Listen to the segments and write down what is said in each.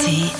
Rtl.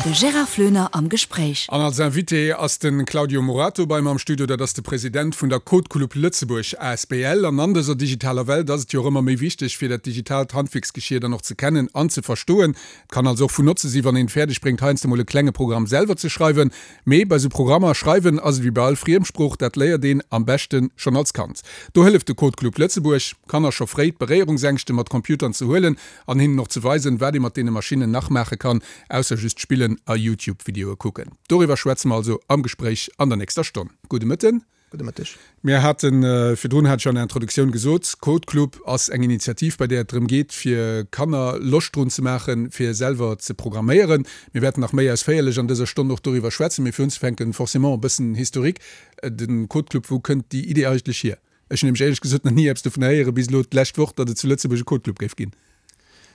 De Gérard Floener am Gespréich. An als Invité ass de Claudio Morato bei mer am Studio. Dat ass de President vun der Code Club Lëtzebuerg asbl. An an dëser digitaler Welt ass et jo och ëmmer méi wichteg, fir dat digitaalt Handwierksgeschier dann och ze kennen an ze verstoen. Et kann also och vun Notze si wann een et fäerdeg bréngt, heiansdo mol e klenge Programm selwer ze schreiwen. Mee bei sou Programmer schreiwen ass et wéi bei all Friemsprooch, dat léiert een am beschte schonn als Kand. Do hëlleft de Code Club Lëtzebuerg, Kanner scho fréi d'Beréierungsängschte mat Computern ze huelen an hinnen och ze weisen, wat ee mat deene Maschinnen nach maache kann, ausser just spillen a Youtube-Videoe kucken. Doriwwer schwätze mer also am Gespréich an der nächster Stonn. Gudde Mëtten. Gudde Mëtteg. Mir haten, virdrun hat ech an der Introduktioun gesot, Code Club ass eng Initiativ, bei där et drëm geet, fir Kanner Loscht drun ze maachen, fir selwer ze programméieren. Mir wäerten nach méi ausféierlech an dëser Stonn och doriwwer schwätzen. Mee fir unzefänken, forcément e bëssen Historique. De Code Club, wou kënnt déi Idee eigentlech hier? Ech hunn nämlech éierlech gesot nach ni eppes dovun héieren, bis elo d'lescht Woch, datt et zu Lëtzebuerg e Code Club géif ginn.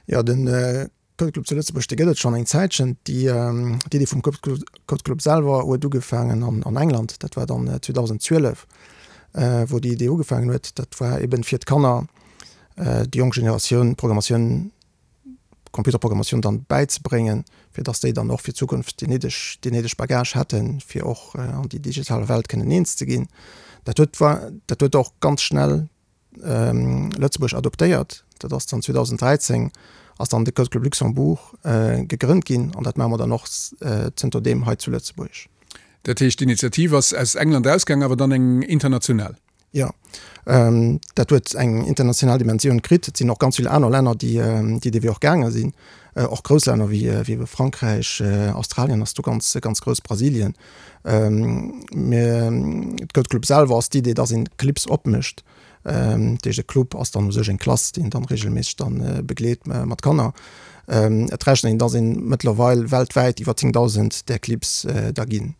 Jo, de Code Club zu Lëtzebuerg, dee gëtt et schonn eng Zäitchen. Déi Iddi vum Code Club selwer huet ugefaangen an England, dat war dann 2012, wou déi Idee ugefaangen huet. Dat war eben fir d'Kanner, déi jonk Generatioun, d'Programmatioun Computerprogrammatioun dann bäizebréngen, fir dass déi dann och fir d'Zukunft déi néideg, deen néideg Bagage hätten, fir och an déi digital Welt kënnen eens ze ginn. Dat huet, dat huet och ganz schnell Lëtzebuerg adoptéiert. Dat ass dann 2013 ass dann de Code Club Luxembourg gegrënnt ginn an dat maache mer dann och zënter deem hei zu Lëtzebuerg. Dat heescht, d'Initiativ ass aus England ausgaang, awer dann eng international? Jo, dat huet eng international Dimensioun kritt. Et sinn och ganz vill aner Länner, déi déi dee Wee och gaange sinn, och grouss Länner wéi wéi Frankräich, Australien ass do ganz ganz grouss, Brasilien. Mä d'Code Club selwer ass d'Idee, datt een Clips opmécht. Dat heescht e Club ass dann u sech eng Klass, déi een dann reegelméisseg dann begleet mat Kanner. Et rechent een, datt een mëttlerweil weltwäit iwwer 10.000 där Clips da ginn.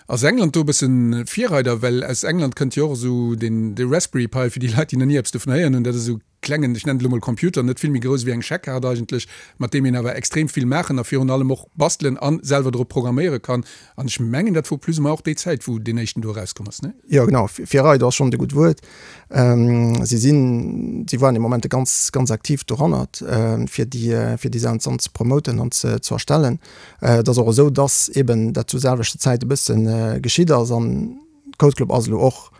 Ass England do e bëssen Virreider? Well aus England kënnt jo och esou deen, de Raspberry Pi, fir déi Leit, déi nach ni eppes dovun héieren hunn, dat ass esou e klengen, ech nennen et elo mol Computer, net vill méi grouss ewéi eng Scheckkaart eigentlech, mat deem een awer extrem vill maachen a virun allem och bastelen a selwer drop programméiere kann. An ech mengen, dat wor plus ou moins och déi Zäit, wou deen éischten do erauskomm ass, ne? Jo, genau, Virreider ass schonn e gutt Wuert. Si sinn, si waren dee Moment ganz, ganz aktiv dorannert, fir déi, fir déi Saachen dann ze promoten an ze, ze erstellen. Et ass och esou, dass eben dat zur selwechter Zäit e bësse geschitt ass an Code Club ass elo och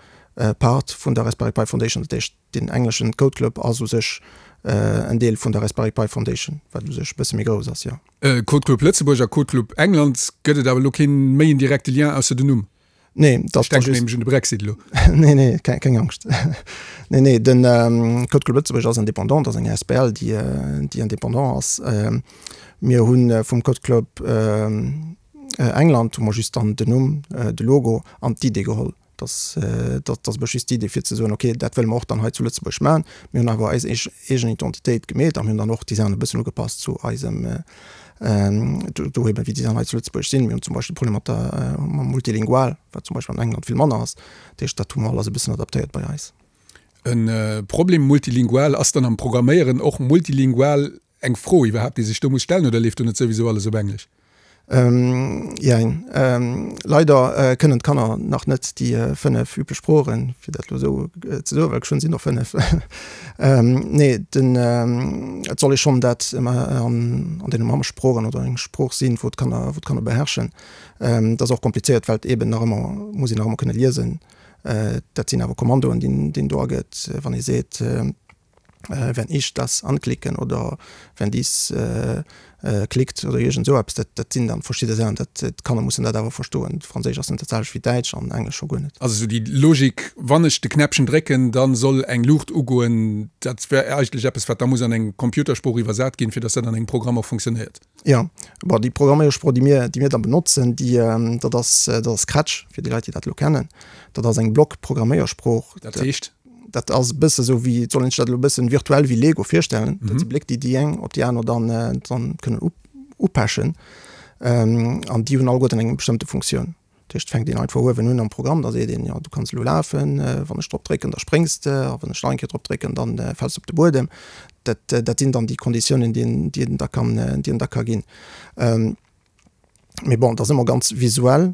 Part vun der Raspberry Pi Foundation. Dat heescht, deen engleschen Code Club ass u sech en Deel vun der Raspberry Pi Foundation, wat u sech e bësse méi grouss ass, jo. Code Club Lëtzebuerg a Code Club England, gëtt et awer elo kee méi en direkte Lien ausser den Numm? Nee, dat Ech denken nämlech un de Brexit elo. Nee, nee, keng, keng Angscht. Nee, nee, den Code Club Lëtzebuerg ass indépendant, ass eng asbl, déi, déi indépendant ass. Mir hu vum Code Club England hu mer just dann den Numm, de Logo an d'Idee geholl. Dass, dat ass just d'Idee fir ze soen, okay, dat wëlle mer och dann hei zu Lëtzebuerg maachen. Mir hunn awer eis eegen Identitéit gemeet a mir hunn dann och déi Saachen e bëssen ugepasst zu eisem, do eben wéi déi Saachen hei zu Lëtzebuerg sinn. Mir hunn zum Beispill Problemer mat der, mam Multilingual, wat zum Beispill an England vill manner ass. Dat heescht, dat hu mer alles e bëssen adaptéiert bei eis. E Problem multilingual ass dann am Programméieren och multilingual eng Fro iwwerhaapt, déi sech do muss stellen, oder leeft do net souwisou alles op Englesch? Jein. Leider kënnen d'Kanner nach net déi 5 üblech Sproochen, fir dat elo esou ze soen, well geschwënn sinn och 5. Nee, den, et soll ee schonn dat an deene Mammesproochen oder eng Sprooch sinn, wou d'Kanner, wou d'Kanner beherrschen. Dat ass och komplizéiert, well et eeben nach ëmmer, muss een nach ëmmer kënne liesen. Dat sinn awer Kommandoen, déi een do agëtt, wann ee seet, wenn ich das anklicken oder wenn dies klickt oder iergend esou eppes, dat dat sinn dann verschidde Saachen, dat d'Kanner mussen dat awer verstoen. Franséisch ass net dat selwecht wéi Däitsch an Englesch scho guer net. Also esou déi Logik, wann ech de Knäppchen drécken, da soll eng Luucht ugoen, dat wär eigentlech eppes, wat da muss an eng Computersprooch iwwersat ginn, fir datt dat an engem Programm och funktionéiert. Jo, bon déi Programméiersprooch, déi mir, déi mir da benotzen, déi dat ass, dat ass Scratch, fir déi Leit, déi dat elo kennen. Dat ass eng Block-Programméiersprooch. Dat heescht? Dat ass e bësse sou wéi, et soll een sech dat elo e bëssen virtuell wéi Lego virstellen. Dat si Bléck, déi déi eng op déi aner dann, dann kënnen upechen. An déi hunn alleguerten eng bestëmmte Funktioun. Dat heescht, et fänkt een einfach uewen un am Programm, da seet een, jo du kanns elo lafen, wann ech drop drécken, da spréngs de, a wann ech nach eng Kéier drop drécken, dann fäls de op de Buedem. Dat, dat sinn dann déi Konditiounen, déi een, déi een da kann, déi een da ka ginn. Mee bon, et ass ëmmer ganz visuell,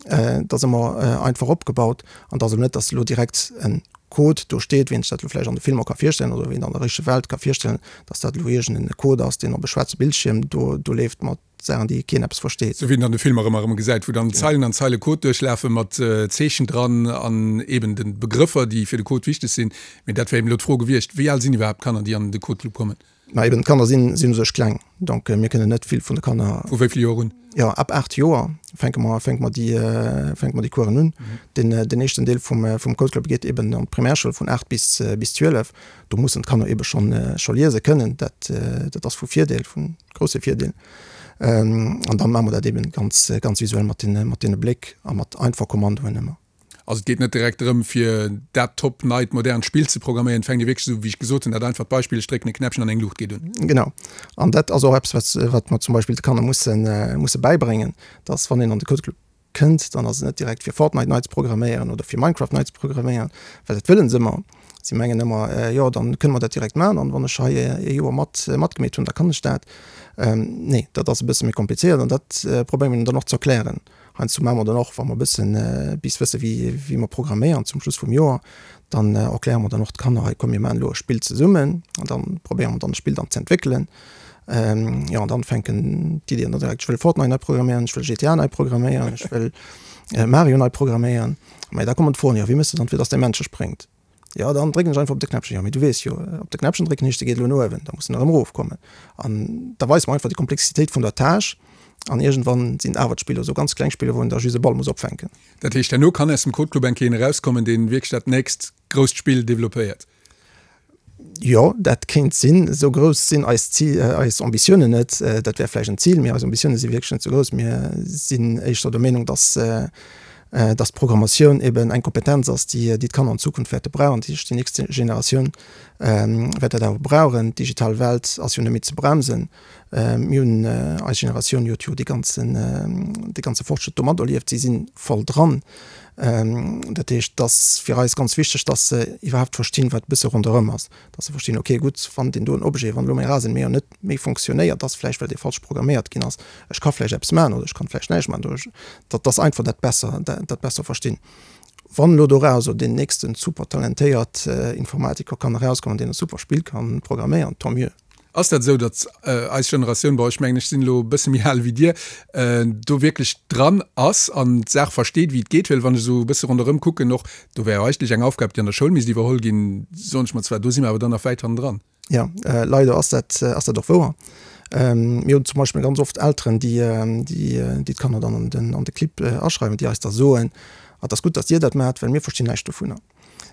et ass ëmmer einfach opgebaut an et ass elo net, dass elo direkt en. Code do steet, wéi een sech dat elo vläicht an de Filmer ka virstellen oder wéi een an der richtege Welt ka virstellen, dass dat elo iergend en Code ass, deen op e schwaarze Bildschierm do do leeft mat Saachen, déi keen eppes versteet. Sou wéi een an de Filmer ëmmer erëm gesäit, wou dann Zeilen an Zeile Code duerchlafe mat Zeechen dran an eben de Begrëffer, déi fir de Code wichteg sinn. Mee dat wär eben elo d'Fro gewiescht, Wéi al sinn iwwerhaapt d'Kanner, déi an de Code Club kommen? Ma eben, d'Kanner sinn sinn u sech kleng, donc mir kënnen net vill vun de Kanner. Vu wéi vill Joer un? Jo, ab 8 Joer fänke mer fänke mer déi fänke mer déi Coursen un. Den den éischten Deel vum vum Code Club geet eben an d'Primärschoul vun 8 bis bis 12. Do mussen d'Kanner ebe schonn scho liese kënnen. Dat dat ass vu Virdeel, vu grousse Virdeel. An dann maache mer dat eben ganz ganz visuell mat den mat deene Bléck a mat einfach Kommandoen ëmmer. Also et geet net direkt drëm, fir dat top neit modernt Spill ze programméieren. Et fänkt ee wierklech esou, wéi ech gesot hunn, dat einfacht Beispill, ech drécken e Knäppchen an eng Luucht geet un. Genau. An dat ass och eppes, wat, wat mer zum Beispill de Kanner mussen, musse bäibréngen, dass wann een an de Code Club kënnt, dann ass et net direkt fir Fortnite nei ze programméieren oder fir Minecraft nei ze programméieren, well dat wëllen se ëmmer. Si mengen ëmmer, jo dann kënne mer dat direkt maachen an wann ech hei ee Joer mat, matgemeet hunn, da kann ech dat. Nee, dat ass e bësse méi komplizéiert an dat probéiere mer hinnen dann och ze erklären. Heiansdo maache mer dann och, wa mer e bëssen bis wësse wéi wéi mer programméieren zum Schluss vum Joer, dann erkläre mer dann och d'Kanner, hei komm mir maachen elo e Spill zesummen an dann probéiere mer dann e Spill dann z'entwéckelen. Jo an dann fänken d'Iddien dann direkt, ech wëll Fortnite nei programméieren, ech wëll GTA nei programméieren, ech wëll Mario nei programméieren. Mä da kommen d'Froen, jo wéi méchs de dann fir datt däi Männche spréngt? Jo, dann drécken ech einfach op de Knäppchen. Jo, mee du weess jo, op de Knäppchen drécken heescht, e geet elo no uewen, da muss en erëm erofkommen. An da weist mer einfach déi Komplexitéit vun der Tâche. An iergendwann sinn et awer d'Spiller, esou ganz kleng Spiller, wou een da just e Ball muss opfänken. Dat heescht, herno kann aus dem Code Club eng Kéier een erauskommen, dee wierklech dat nächst grousst Spill developpéiert? Jo, dat kéint sinn. Esou grouss sinn eis Zil, eis Ambitiounen net. Dat wär vläicht en Zil, mee eis Ambitioune si wierklech net esou grouss. Mir sinn éischter der Meenung, dass, dass d'Programmatioun eben eng Kompetenz ass, déi, déi d'Kanner an Zukunft wäerte brauchen. Dat heescht, déi nächst Generatioun wäert dat awer brauchen. D'digital Welt ass jo net méi ze bremsen. Mir hunn, eis Generatioun huet jo dee ganzen, dee ganze Fortschrëtt do materlieft. Si si voll dran. Dat heescht, et ass fir eis ganz wichteg, dass se iwwerhaapt verstinn, wat e bësse ronderëm ass. Dass se verstinn, okay, gutt, wann deen doen Objet, wann elo mäi Rasenmäher net méi fonctionnéiert, ass vläicht, well dee falsch programméiert ginn ass. Ech ka vläicht eppes maachen oder ech kann vläicht näischt maachen. Oder datt dass einfach dat besser, dat besser verstinn. Wann elo dorauser deen nächsten super talentéiert Informatiker kann erauskommen, deen e super Spill kann programméieren, tant mieux. Ass dat esou, datt eis Generatioun, bon ech mengen ech sinn elo e bësse méi al wéi Dir, do wierklech dran ass an d'Saach versteet wéi et geet? Well wann ech esou e bësse ronderëm kucken och, do wär jo eigentlech eng Aufgab déi an der Schoul misst iwwerholl ginn, soen ech mer zwar, do si mer awer dann nach wäit hannendran. Jo, leider ass dat, ass dat och wouer. Mir hunn zum Beispill ganz oft Elteren, déi, déi d'Kanner dann an den, an de Clibb aschreiwen, déi eis da soen, ah, et ass gutt, datt Dir dat maacht, well mir verstinn näischt dovunner.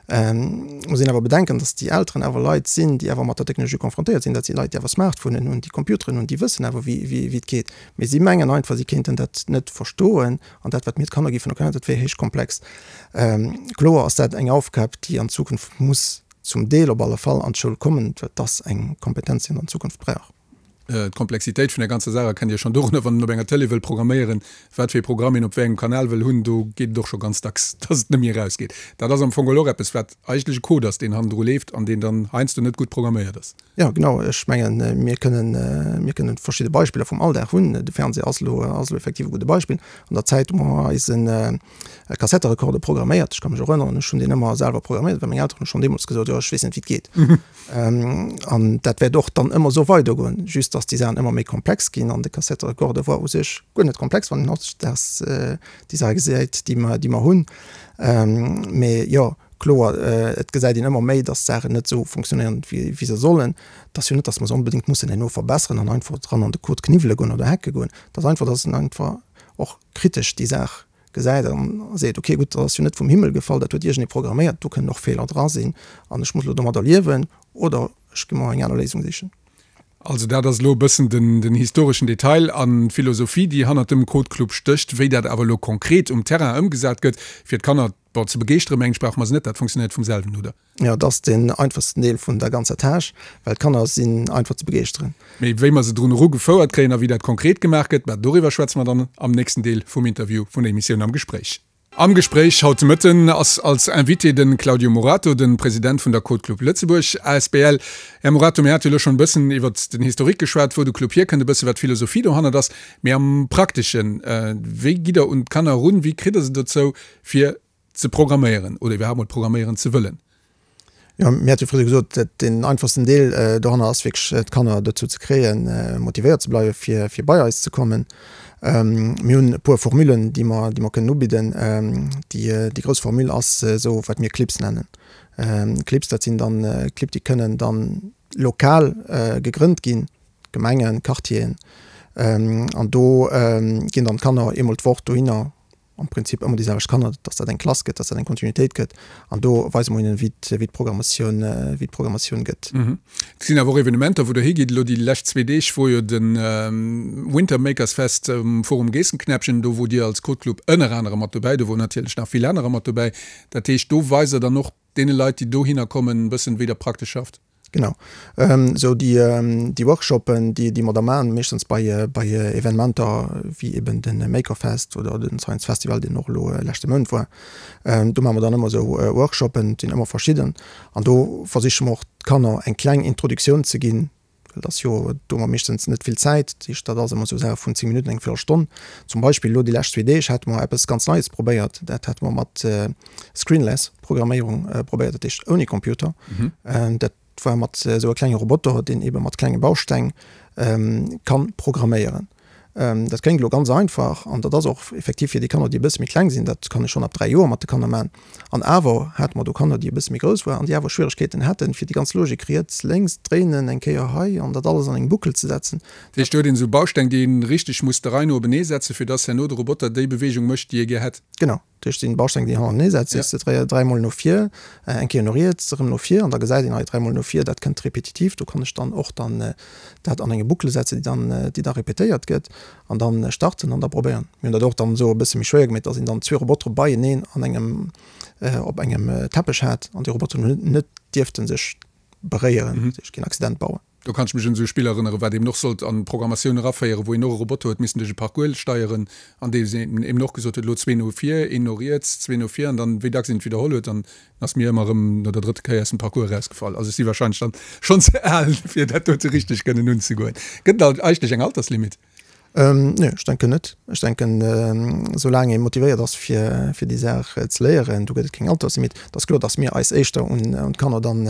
Muss een awer bedenken, datt déi Elteren awer Leit sinn, déi awer mat der Technologie confrontéiert sinn. Dat si Leit, déi awer Smartphonen hunn, déi Computeren hunn, déi wëssen awer, wéi, wéi, wéi et geet. Mee si mengen einfach, si kéinten dat net verstoen an dat, wat mir d'Kanner géifen erklären, dat wier héich komplex. Kloer ass dat eng Aufgab, déi an Zukunft muss zum Deel op alle Fall an d'Schoul kommen, well et ass eng Kompetenz, déi een an Zukunft brauch. D'Komplexitéit vun der ganzer Saach erkennt Dir schonn dorunner, wann een op enger Tëlee wëll programméieren, wat fir ee Programm een op wéi engem Kanal wëll hunn, do geet et och scho ganz dacks, dass et net méi erausgeet. Dat ass am Fong geholl och eppes, wat eigentlech e Code ass, deen hannendru leeft an deen dann heiansdo net gutt programméiert ass. Jo, genau. Ech mengen, mir kënnen, mir kënnen verschidde Beispiller vum Alldag hunn. De Fernseh ass elo, ass elo effektiv e gudde Beispill. An der Zäit, wou mer eisen Kassetterekorder programméiert, ech ka mech erënneren, ech hunn deen ëmmer selwer programméiert, well meng Elteren hu schonn deemools gesot, jo, ech weess net, wéi et geet. An dat wäert och dann ëmmer esou weidergoen, just datt déi Saachen ëmmer méi komplex ginn. An de Kassetterekorder war u sech guer net komplex, wann een hautdesdaags déi Saache gesäit, déi mer, déi mer hunn. Mee jo, kloer, et gesäit een ëmmer méi, datt d'Saachen net esou funktionéieren, wéi, wéi se sollen. Et ass jo net, datt mer se onbedéngt mussen herno verbesseren an einfach dran an de Code kniwwele goen oder hacke goen. Et ass einfach, datt een einfach och kritesch déi Saach gesäit an seet, ok gutt, dat ass jo net vum Himmel gefall, dat huet iergendee programméiert, do kënnen och Feeler dra sinn an ech muss elo domadder liewen oder ech gi mer eng aner Léisung sichen. Also dat ass elo e bëssen den historeschen Detail an d'Philosophie, déi hannert dem Code Club stécht. Wéi dat awer elo konkret um Terrain ëmgesat gëtt, fir d'Kanner, bon, ze begeeschteren, mengen ech, brauche mer se net, dat funktionéiert vum selwen, oder? Jo, et ass deen einfachsten Deel vun der ganzer Tâche, well d'Kanner sinn einfach ze begeeschteren. Mee wéi mer se drun eru gefouert kréien a wéi dat konkret gemaach gëtt, mä doriwwer schwätze mer dann am nächsten Deel vum Interview vun der Emissioun Am Gespréich. Am Gespréich haut de Mëtten ass als Invité de Claudio Morato, de President vun der Code Club Lëtzebuerg asbl. Här Morato, mir hate jo elo schonn e bëssen iwwert den Historique geschwat, wou de Club hierkënnt, e bësse wat d'Philosophie dohannert ass. Mee am Prakteschen, wéi gitt der un d'Kanner erun, wéi kritt der se dozou fir ze programméieren oder iwwerhaapt mol programméieren ze wëllen? Jo, mir hate jo fréier gesot, dat deen einfachsten Deel doranner ass wierklech d'Kanner dozou ze kréien, motivéiert ze bleiwe fir fir bei eis ze kommen. Mir hunn e puer Formulen, déi mer déi mer kënnen ubidden. Déi déi grouss Formule ass esou wat mir Clips nennen. Clips, dat sinn dann Clibb, déi kënnen dann lokal gegrënnt ginn, Gemengen, Quartieren, an do ginn dann d'Kanner eemol d'Woch dohinner am Prinzip ëmmer déi selwecht Kanner, dass dat eng Klass gëtt, dass dat eng Kontinuitéit gëtt an do weise mer hinnen, wéi d'Programmatioun, wéi d'Programmatioun gëtt. Et sinn awer och Evenementer, wou Der higitt. Elo déi lescht zwee Deeg wor jo de Winter Makers Fest um Forum Geessenknäppchen, do wor Dir als Code Club ënner anerem mat dobäi, do woren natierlech nach vill anerer mat dobäi. Dat heescht, do weist Der dann och deene Leit, déi dohinner kommen, e bëssen, wéi Der praktesch schafft. Genau. Esou déi, déi Workshoppen, déi, déi mer da maachen, meeschtens bei, bei Evenementer wéi eben de Makerfest oder de Science Festival, deen och elo leschte Mount war. Do maache mer dann ëmmer esou Workshoppen, et sinn ëmmer verschidden. An do versiche mer och d'Kanner eng kleng Introduktioun ze ginn, well et ass jo, do hu mer meeschtens net vill Zäit, dat heescht, dat ass ëmmer esou Saach vun 10 Minutten, eng Véierelstonn. Zum Beispill elo déi lescht zwee Deeg hate mer eppes ganz Neies probéiert, dat hate mer mat Screenless Programméierung probéiert, dat heescht ouni Computer. Dat war mat esou e klenge Roboter, deen eebe mat klenge Bausteng ka programméieren. Dat kléngt elo ganz einfach an dat ass och effektiv fir déi Kanner, déi e bësse méi kleng sinn, dat kann ee schonn ab 3 Joer mat de Kanner maachen. An awer hate mer do Kanner, déi e bësse méi grouss waren an déi awer Schwieregkeeten haten, fir déi ganz Logik riets, lénks, dréinen, eng Kéier hei an dat alles an eng Boucle ze setzen. Dat heescht, do huet een esou Bausteng, déi een richteg muss der Rei no openee setzen, fir dass herno de Roboter déi Beweegung mécht, déi ee gär hätt. Genau. Dat heescht, sinn Bausteng, déi hannertenee setzt, sees de dräimol no vir, eng Kéier no riets, erëm no vir an da gesäit een hei dräimol no vir, dat kënnt repetitiv. Do kann ech dann och dann dat an enge Boucle setzen, déi dann, déi da repetéiert gëtt an dann starten an da probéieren. Mir hunn dat och dann esou e bësse méi schwéier gemeet, dass een dann zwee Robotere beieneen an engem, op engem Teppech hat an déi Roboteren hunn net dierfte sech beréieren, dat heescht keen Accident bauen. Do kann ech mech un esou e Spill erënneren, wat eben och sollt an d'Programmatioun eraféieren, wou een och e Roboter huet missen duerch e Parcours steieren, an dee eben och gesot huet, elo zwee no vir, een no riets, zwee no vir, an dann, wéi dacks een et widderholl huet, dann ass mir ëmmer erëm no der drëtter Kéier aus dem Parcours erausgefall. Also ech si wahrscheinlech dann schonn ze al, fir dat dote richteg kënnen unzegoen. Gëtt et eigentlech eng Alterslimit? Nee, ech denken net. Ech denken, soulaang ee motivéiert ass, fir, fir déi Saach ze léieren, do gëtt et keng Alterslimit. Et ass kloer, datt mir eis éischter un, un d'Kanner dann,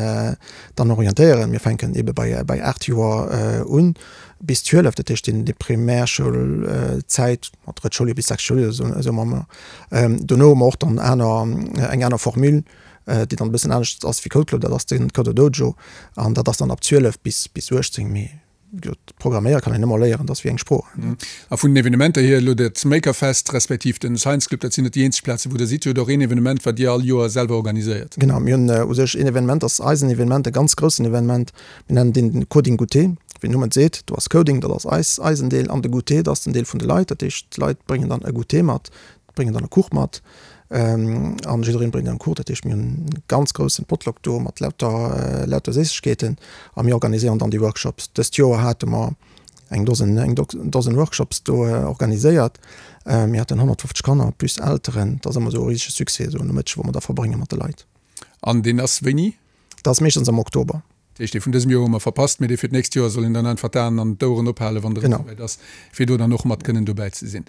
dann orientéieren. Mir fänken eebe bei, bei 8 Joer un bis 12, dat heescht déi, déi Primärschoulzäit, ma drëtt Schouljoer bis sechst Schouljoer, esou, esou maache mer. Dono hu mer och dann aner, eng aner Formule, déi dann e bëssen anescht ass wéi Code Club, dat ass de Coder Dojo an dat ass dann ab 12 bis, bis 18. Mee Programméiere kann een ëmmer léieren, dat ass wéi eng Sprooch. A vun den Evenementer hier, elo dat Makerfest respektiv den Science Club, dat sinn net déi eenzeg Plazen, wou Der sidd. Dir hutt och een Evenement, wat Dir all Joer selwer organiséiert. Genau, mir hunn u sech een Evenement, dat ass eisen Evenement, e ganz groussen Evenement. Mir nennen deen den Coding Goûter. Wéi den Numm et seet, do ass Coding, dat ass eis, eisen Deel, an de Goûter, dat ass den Deel vun de Leit. Dat heescht, d'Leit bréngen dann e Goûter mat, bréngen dann e Kuch mat an jiddereen bréngt en Kuch. Dat heescht mir hunn e ganz groussen Potluck do mat lauter lauter Séissegkeeten a mir organiséieren dann déi Workshops. Dëst Joer hate mer eng Dosen eng Dosen Workshops do organiséiert. Mir haten 150 Kanner plus Elteren. Dat ass ëmmer esou e risege Succès, esou en Nomëtteg wou mer da verbrénge mat de Leit. An deen ass wéini? Dat ass meeschtens am Oktober. Dat heescht, dee vun dësem Joer hu mer verpasst, mee dee fir d'nächst Joer soll een dann einfach d'Aen an d'Oueren ophalen, wann et erëm esouwäit ass, fir do dann och mat kënnen dobäi ze sinn.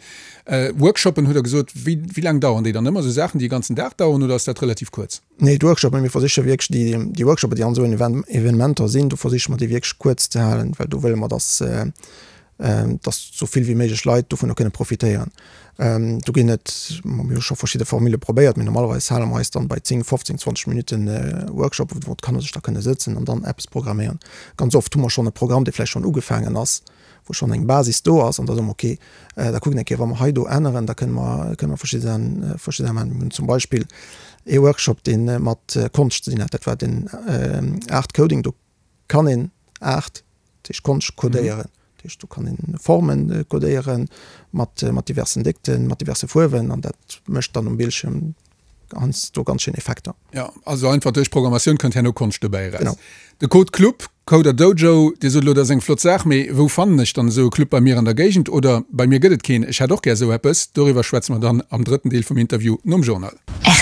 Workshoppen hutt Der gesot, wéi, wéi laang dauern déi dann ëmmer? Esou Saachen, déi e ganzen Dag dauern oder ass dat relativ kuerz? Nee, d'Workshoppen, mir versiche wierklech déi, déi Workshoppen, déi an esou Evenementer sinn, do versiche mer déi wierklech kuerz ze halen, well do wëlle mer, dass, dass sou vill wéi méiglech Leit dovunner kënne profitéieren. Do ginn et, mir hu scho verschidde Formule probéiert, mee normalerweis hale mer eis dann bei 10, 15, 20 Minutten Workshop, wou d'Kanner sech da kënne sëtzen an dann eppes programméieren. Ganz oft hu mer schonn e Programm, dee vläicht schonn ugefaangen ass, wou schonn eng Basis do ass an da soe mer, okay, da kucken eng Kéier, wa mer hei do änneren, da kënne mer, kënne mer verschidde Saachen, verschidde Saachen maachen. Mir hunn zum Beispill ee Workshop, dee mat Konscht ze dinn hat, dat war den Art Coding. Do kann een Aart, dat heescht Konscht codéieren. Dat heescht do kann een Formen codéieren mat mat diversen Déckten, mat diverse Fuerwen an dat mécht dann um Bildschirm heiansdo ganz schéin Effekter. Jo, also einfach duerch Programmatioun kënnt herno Konscht dobäi eraus. Genau. De Code Club, Coder Dojo, Dir sot elo, dat ass eng flott Saach, mee wou fannen ech dann esou e Club bei mir an der Géigend? Oder bei mir gëtt et keen, ech hätt och gär esou eppes. Doriwwer schwätze mer dann am drëtten Deel vum Interview nom Journal.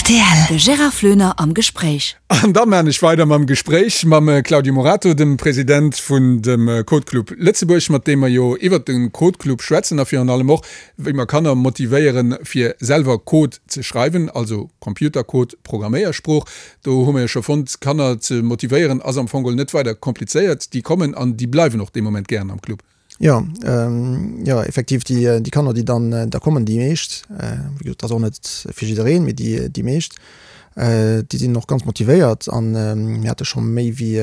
Rtl. De Gérard Floener am Gespréich. An da maan ech weider mam Gespréich mam Claudio Morato, dem President vun dem Code Club Lëtzebuerg, mat deem mer jo iwwert de Code Club schwätzen a virun allem och, wéi mer Kanner motivéieren, fir selwer Code ze schreiwen, also Computercode, Programméiersprooch. Do hu mer jo scho fonnt, Kanner ze motivéieren ass am Fong geholl net weider komplizéiert. Déi kommen an déi bleiwen och dee Moment gären am Club. Jo, jo, effektiv, déi, déi Kanner, déi dann da kommen, déi meescht, wéi gesot, dat ass och net fir jiddereen, mee déi, déi meescht, déi sinn och ganz motivéiert an mir hate scho méi wéi,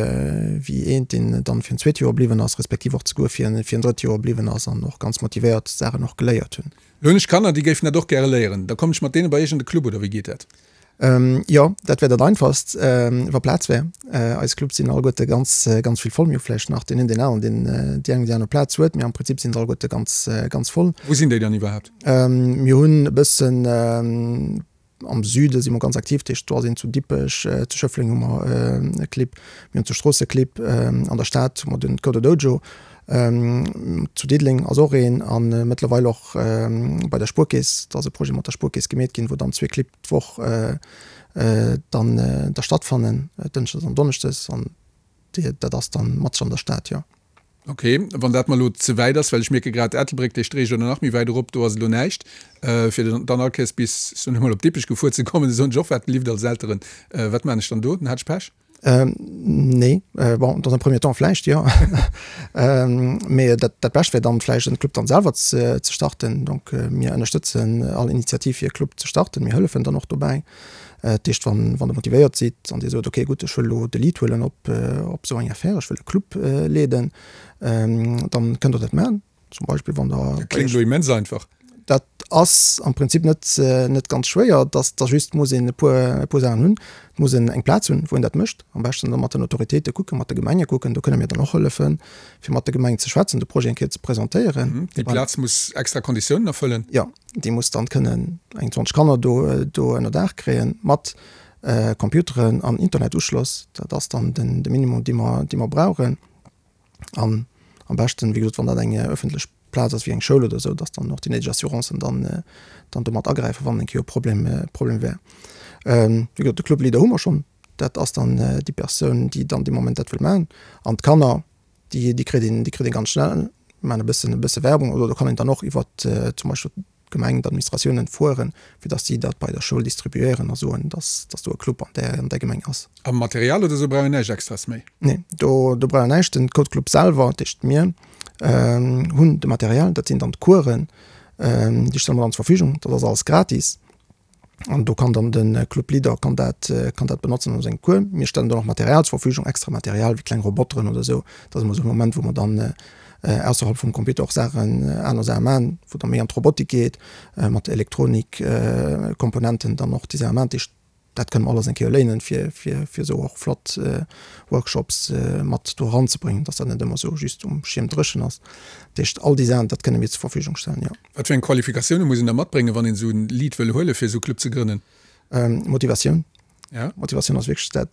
wéi eent, deen dann fir en zweet Joer bliwwen ass, respektiv och zeguer fir en, fir en drëtt Joer bliwwen ass an och ganz motivéiert Saachen och geléiert hunn. Lo hunn ech Kanner, déi géifen dat och gäre léieren. Da kommen ech mat deene bei iech an de Club, oder wéi geet dat? Jo, dat wär dat einfachst, wa Plaz wär. Eis Clubs sinn alleguerte ganz, ganz vill voll. Mir hu vläicht nach deen een, deen aneren, deen déi eng oder déi aner Plaz huet, mee am Prinzip sinn se alleguerte ganz, ganz voll. Wou sinn déi dann iwwerhaapt? Mir hunn e bëssen, am Süde si mer ganz aktiv, dat heescht do ass een zu Dippech, zu Schëffleng hu mer e Clibb, mir hunn zu Strooss e Clibb, an der Stad hu mer den Coder Dojo, zu Diddeleng ass och een a mëttlerweil och bei der Spuerkeess, do ass e Projet mat der Spuerkeess gemeet ginn, wou dann zwee Clibb d'Woch dann da stattfannen, Dënschdes an Donneschdes, an dat ass dann matzeg an der Stad, jo. Ok, wann dat mer elo ze wäit ass, well ech mierke grad, Ettelbréck, dee Streech oder nach méi wäit erop, do ass elo näischt, fir dann all Kéiers bis, ech soen emol, op Dippech gefuer ze kommen, soen ech och, wat lift als Elteren, wat maan ech dann do? Dann hat ech Pech. Nee, bon, dans un premier temps vläicht, jo. Mee dat, dat Bescht wär dann vläicht en Club dann selwer ze, ze starten. Donc mir ënnerstëtzen all Initiativ fir e Club ze starten. Mir hëllefen dann och dobäi. Dat heescht, wann, wann Der motivéiert sidd an Dir sot, okay gutt, ech wëll elo de Lead huelen op, op esou eng Affaire, ech wëll e Club leeden, dann kënnt Der dat maachen. Zum Beispill wann der. Dat kléngt elo immens einfach. Dat ass am Prinzip net, net ganz schwéier. Dass da just muss een e puer, e puer Saachen hunn. Et muss een eng Plaz hunn, wou een dat mécht. Am beschten da mat den Autoritéite kucken, mat de Gemenge kucken. Do kënne mir dann och hëllefen, fir mat de Gemengen ze schwätzen, de Projet eng Kéier ze presentéieren. Déi Plaz muss extra Konditiounen erfëllen? Jo, déi muss dann kënnen eng 20 Kanner do, do ënner Daach kréien, mat Computeren an Internetuschloss. Dat ass dann den, de Minimum, dee mer, dee mer brauchen. An am beschten, wéi gesot, wann dat eng ëffentlech Plaz ass, wéi eng Schoul oder esou, dass dann och déi néideg Assurancen dann, dann do mat agräifen, wann eng Kéier e Problem, Problem wär. Wéi gesot, de Club Leader hu mer schonn. Dat ass dann déi Persoun, déi dann dee Moment dat wëll maachen. An d'Kanner, déi, déi kritt een, déi kritt ee ganz schnell. Mir maachen e bëssen, e bësse Werbung oder do kann een dann och iwwert zum Beispill d'Gemeng, d'Administratiounen fueren, fir dass si dat bei der Schoul distribuéieren a soen, dass, dass do e Club an där, an där Gemeng ass. A Material oder esou brauch een näischt Extraes méi? Nee, do, do brauch een näischt. Den Code Club selwer, dat heescht mir, hunn de Material, dat sinn dann d'Coursen, déi stelle mer dann zur Verfügung. Dat ass alles gratis. An do kann dann de Club Leader kann dat, kann dat benotzen an sengem Cours. Mir stellen dann och Material zur Verfügung, extra Material wéi kleng Roboteren oder esou. Dat ass ëmmer esou e Moment, wou mer dann ausserhalb vum Computer och Saachen, aner Saache maachen, wou da méi an d'Robotik geet, mat Elektronikkomponenten dann och déi Saache maachen. Dat heescht, dat kënne mer alles eng Kéier léinen, fir, fir, fir esou och flott Workshops mat do eranzebréngen, dass dat net ëmmer esou just um Schierm dréchen ass. Dat heescht, all déi Saachen, dat kënne mir zur Verfügung stellen, jo. Wat fir eng Qualifikatioune muss een da matbréngen, wann een esou en Lead wëll huelen, fir esou e Club ze grënnen? Motivatioun. Ja. Motivatioun ass wierklech dat,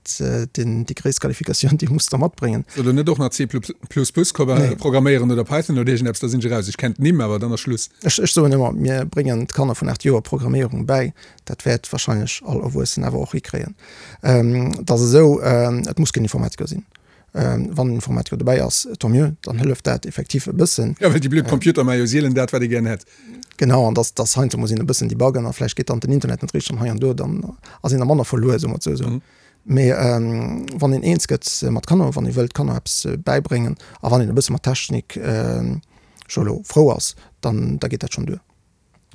den, déi gréisst Qualifikatioun, déi muss der matbréngen. Soll der net och nach C plus plus programméieren oder Python oder iergendeppes, da sinn ech eraus. Ech kenn d'Nimm, awer dann ass Schluss. Ech, ech soen ëmmer, mir bréngen d'Kanner vun 8 Joer Programméierung bäi. Dat wäert wahrscheinlech all Erwuessen awer och hikréien. Et ass esou, et muss keen Informatiker sinn. Wann en Informatiker dobäi ass, tant mieux, dann hëlleft dat effektiv e bëssen. Jo, well déi blöd Computer maache jo sielen dat, wat ee gären hätt. Genau, an dass, dass heiansdo muss een e bëssen debuggen a vläicht geet dann den Internet net richteg an hei an do, dann ass een da manner verluer, soe mer et esou. Mee wann een eens gëtt mat Kanner, wann ee wëllt Kanner eppes bäibréngen a wann een e bësse mat Technik scho elo frou ass, dann da geet dat schonn duer.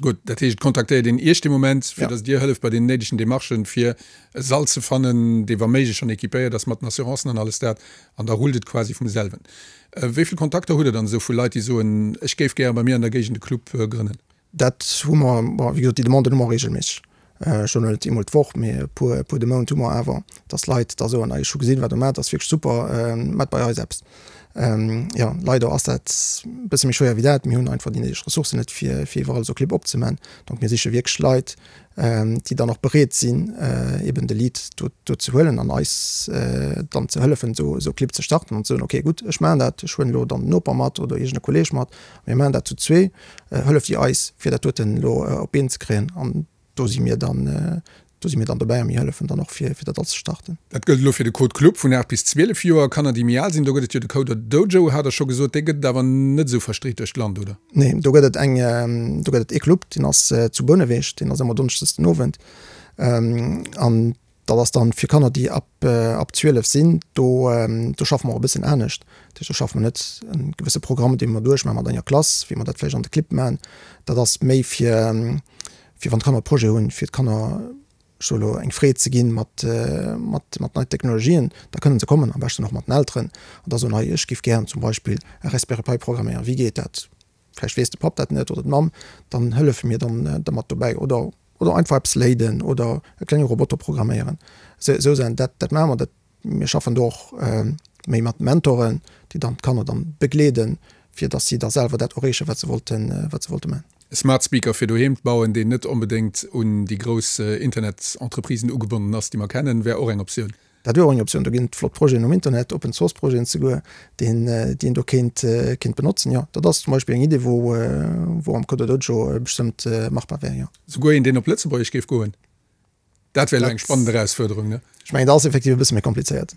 Gutt, dat heescht, et kontaktéiert een Iech dee Moment, fir datt Dir hëlleft bei den néidegen Demarchen, fir e Sall ze fannen, dee wa méiglech schonn équipéiert ass mat den Assurancen an alles dat, an da rullt et quasi vum selwen. Wéi vill Kontakter hutt Der dann esou vu Leit, déi soen, ech géif gäre bei mir an der Géigend e Club grënnen? Dat hu mer, bon, wéi gesot, déi Demanden hu mer reegelméisseg. Ech soen elo net eemol d'Woch, mee e puer, e puer de Mount hu mer awer, dass Leit da soen, ech hu gesinn, wat Der maacht, ass wierklech super, maacht bei eis eppes. Jo, leider ass dat e bësse méi schwéier wéi dat. Mir hunn einfach déi néideg Ressourcen net, fir, fir iwwerall esou Clibb opzemaachen. Donc mir siche wierklech Leit, déi dann och bereet sinn, eben de Lead do, do ze huelen an eis dann ze hëllefen, esou, esou Clibb ze starten an ze soen, okay, gutt, ech maachen dat, ech huelen elo dann den Noper mat oder iergend e Kolleeg mat, mir maachen dat zu zwee. Hëlleft Dir eis, fir dat doten elo op d'Been ze kréien? An do si mir dann. Do si mir dann dobäi a mir hëllefen dann och fir fir dat alles ze starten. Dat gëllt elo fir de Code Club vun 8 bis 12 Joer. Kanner déi méi al sinn, do gëtt et jo de Coder Dojo, hat der scho gesot. Dee gëtt et awer net esou verstreet duerch d'Land, oder? Nee, do gëtt et eng, do gëtt et ee Club, deen ass zu Bouneweg, deen ass ëmmer donneschdes den Owend. An dat ass dann fir Kanner déi ab ab 12 sinn. Do do schaffe mer och e bëssen anescht. Dat heescht do schaffe mer net e gewësse Programm dee mer duerchmaache mat enger Klass, wéi mer dat vläicht an de Clibb maachen. Dat ass méi fir fir wann d'Kanner Projet hunn, fir d'Kanner, ech soe lo, eng Freed ze ginn mat, mat, mat neien Technologien, da kënnen se kommen, am beschten och mat den Elteren, an da soen, hei, ech giff gären zum Beispill e Raspberry Pi programméieren, wéi geet dat? Vläicht weess de Papp dat net oder d'Mamm, dann hëllefe mir dann dermat dobäi oder, oder einfach eppes léiden oder e klenge Roboter programméieren. Esou, esou Saachen, dat, dat maache mer, dat Mir schaffen do och méi mat Mentoren, déi dann d'Kanner dann begleeden, fir dass si da selwer dat erreechen, wat se wollten, wat se wollte man. E Smart Speaker fir doheem bauen, deen net onbedéngt un déi grouss Internet-Entreprisen ugebonnen ass, déi mer kennen, wär och eng Optioun. Dat wier och eng Optioun. Do ginn et flott Projeten um Internet, Open Source Projeten souguer, deen, déi een do kéint, kéint benotzen. Jo, dat ass zum Beispill eng Idee, wou, wou am CoderDojo bestëmmt machbar wär, jo. Souguer een, deen op Lëtzebuergesch géif goen. Dat wär elo eng spannend Erausfuerderung, ne? Ech mengen, dat ass effektiv e bësse méi komplizéiert.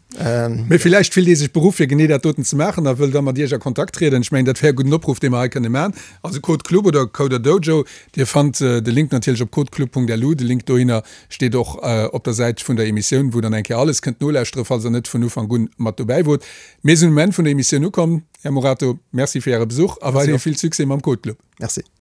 Mee villäicht fillt ee sech beruff, fir genee dat doten ze maachen a wëll da mat Iech a Kontakt trieden. Ech mengen, dat wär e gudden Opruff, dee mer hei kënne maachen. Also Code Club oder Coder Dojo, Dir fannt de Link natierlech op codeclub.lu. De Link dohinner steet och op der Säit vun der Emissioun, wou dann eng Kéier alles kënnt nolauschtere, falls Der net vun Ufank un mat dobäi wot. Mir sinn um Enn vun der Emissioun ukomm. Här Morato, Merci fir Äre Besuch a weiderhi vill Succès mam Code Club. Merci.